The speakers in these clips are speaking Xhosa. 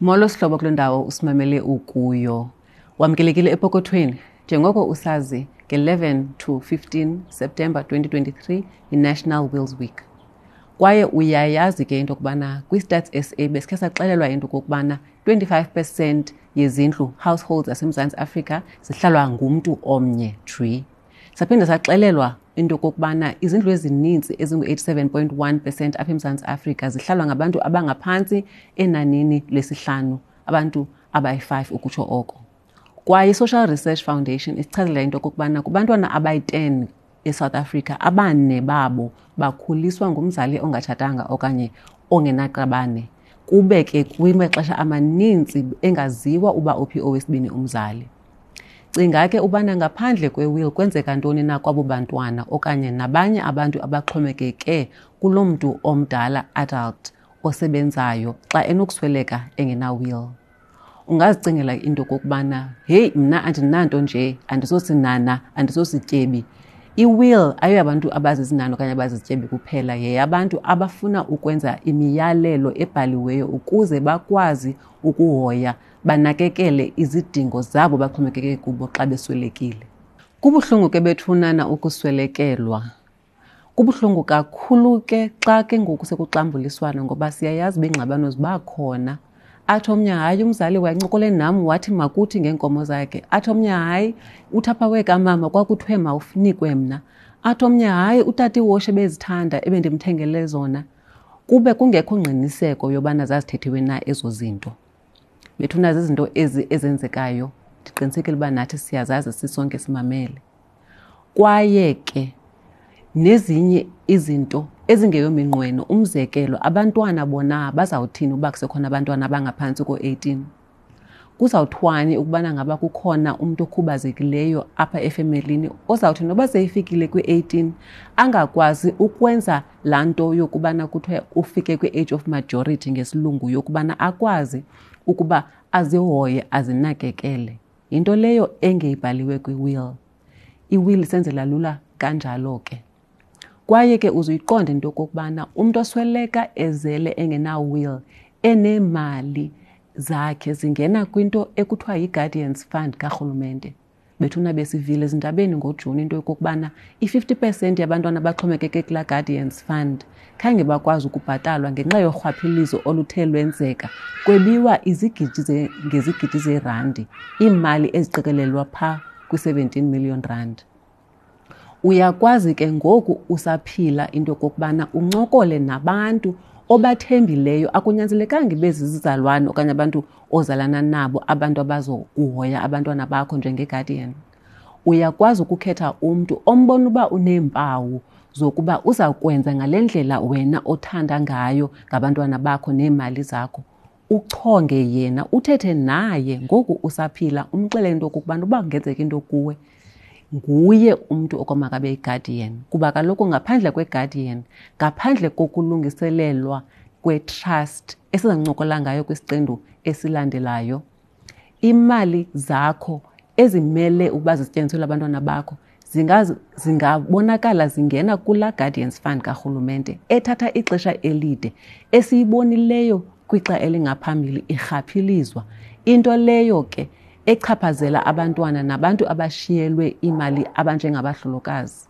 Molo sihlobo kule ndawo usimamele ukuyo. Wamkelekile epokothweni. Njengoko usazi nge-11 to 15 September 2023 yi-National Wills Week. Kwaye uyayazi ke into yokubana kwi-Stats SA besikhe saxelelwa into yokokubana 25 percent yezindlu households zaseMzantsi Afrika zihlalwa ngumntu omnye tree. Saphinde saxelelwa into yokokubana izindlu ezininzi ezingu-87.1 percent apha eMzantsi Afrika zihlalwa ngabantu abangaphantsi enanini lesihlanu, abantu abayi-5 ukutsho oko. Kwaye i-Social Research Foundation isichazela into yokokubana kubantwana abayi-10 eSouth Africa, abane babo bakhuliswa ngumzali ongatshatanga okanye ongenaqabane, kube ke kwimaxesha amaninzi engaziwa uba uphi owesibini umzali. Cinga ke ubana ngaphandle kwe-will kwenzeka ntoni na kwabo bantwana okanye nabanye abantu abaxhomekeke kuloo mntu omdala, adult, osebenzayo xa enokusweleka engena-will. Ungazicingela into okokubana heyi, mna andinanto nje, andisosinana, andisosityebi. I-will ayoyabantu abazizinana okanye abazizityebi kuphela, yeyabantu abafuna ukwenza imiyalelo ebhaliweyo ukuze bakwazi ukuhoya banakekele izidingo zabo baxhomekeke kubo xa beswelekile. Kubuhlungu ke bethunana ukuswelekelwa. Kubuhlungu kakhulu ke xa ke ngoku sekuxambuliswana, ngoba siyayazi uba iingxabano ziba khona. Athi omnye hayi, umzali wayencokole nam wathi makuthi ngeenkomo zakhe. Athi omnye hayi, uthapha wekamama kwakuthiwe mawunikwe mna. Athi omnye hayi, utata iwoshe ebezithanda ebendimthengele zona. Kube kungekho ngqiniseko yobana zazithethiwe na ezo zinto. Bethuna zizinto ezi ezenzekayo, ndiqinisekile uba nathi siyazazi sisonke simamele. Kwaye ke nezinye izinto ezingeyominqweno, umzekelo abantwana bona bazawuthini uba kusekhona abantwana abangaphantsi ko-18? Kuzawuthwani ukubana ngaba kukhona umntu okhubazekileyo apha efemelini ozawuthi noba seyifikile kwi-18 angakwazi ukwenza laa nto yokubana kuthiwe ufike kwi-age of majority ngesilungu, yokubana akwazi ukuba azihoye azinakekele. Yinto leyo engeyibhaliwe kwi-will. I-will isenzela lula kanjalo ke. Kwaye ke uzuyiqonde into yokokubana umntu osweleka ezele engena-will, eneemali zakhe zingena kwinto ekuthiwa yi-Guardians Fund karhulumente. Bethuna besivile ezindabeni ngoJuni into yokokubana i-50% yabantwana abaxhomekeke kulaa Guardians Fund khange bakwazi ukubhatalwa ngenxa yorhwaphilizo oluthe lwenzeka, kwebiwa izigidi ngezigidi zeerandi, iimali eziqikelelwa phaa kwi-17 million rand. Uyakwazi ke ngoku usaphila into yokokubana uncokole nabantu obathembileyo, akunyanzelekanga ibe zizizalwane okanye abantu ozalana nabo, abantu abazokuhoya abantwana bakho njengeguardian. Uyakwazi ukukhetha umntu ombona uba uneempawu zokuba uza kwenza ngale ndlela wena othanda ngayo ngabantwana bakho neemali zakho. Uchonge yena, uthethe naye ngoku usaphila, umxelele into okokubana uba kungenzeka into kuwe, nguye umntu okwamakabe yi-guardian. Kuba kaloku ngaphandle kwe-guardian, ngaphandle kokulungiselelwa kwe-trust esizancokola ngayo kwisiqendu esilandelayo, imali zakho ezimele ukuba zisetyenziselwe abantwana bakho zingabonakala zingena kulaa Guardians Fund karhulumente ethatha ixesha elide, esiyibonileyo kwixa elingaphambili irhaphilizwa. Into leyo ke echaphazela abantwana nabantu abashiyelwe imali abanjengabahlolokazi.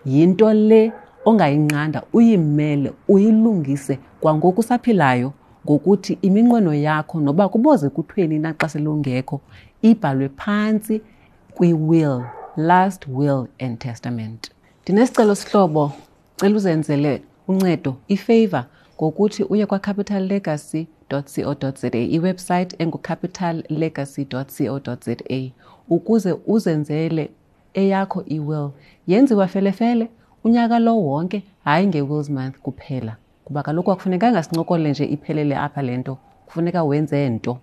Yinto le ongayinqanda, uyimele, uyilungise kwangoku usaphilayo, ngokuthi iminqweno yakho noba kuboze kuthweni na xa selungekho ibhalwe phantsi kwi-will, last will and testament. Ndinesicelo sihlobo, cela uzenzele uncedo, ifavor, ngokuthi uye kwa-capitallegacy.co.za, iwebsite engu-capitallegacy.co.za, ukuze uzenzele eyakho i-will. Yenziwa felefele unyaka lo wonke, hayi nge-Wills Month kuphela, kuba kaloku akufunekanga sincokole nje iphelele apha le nto, kufuneka wenze nto.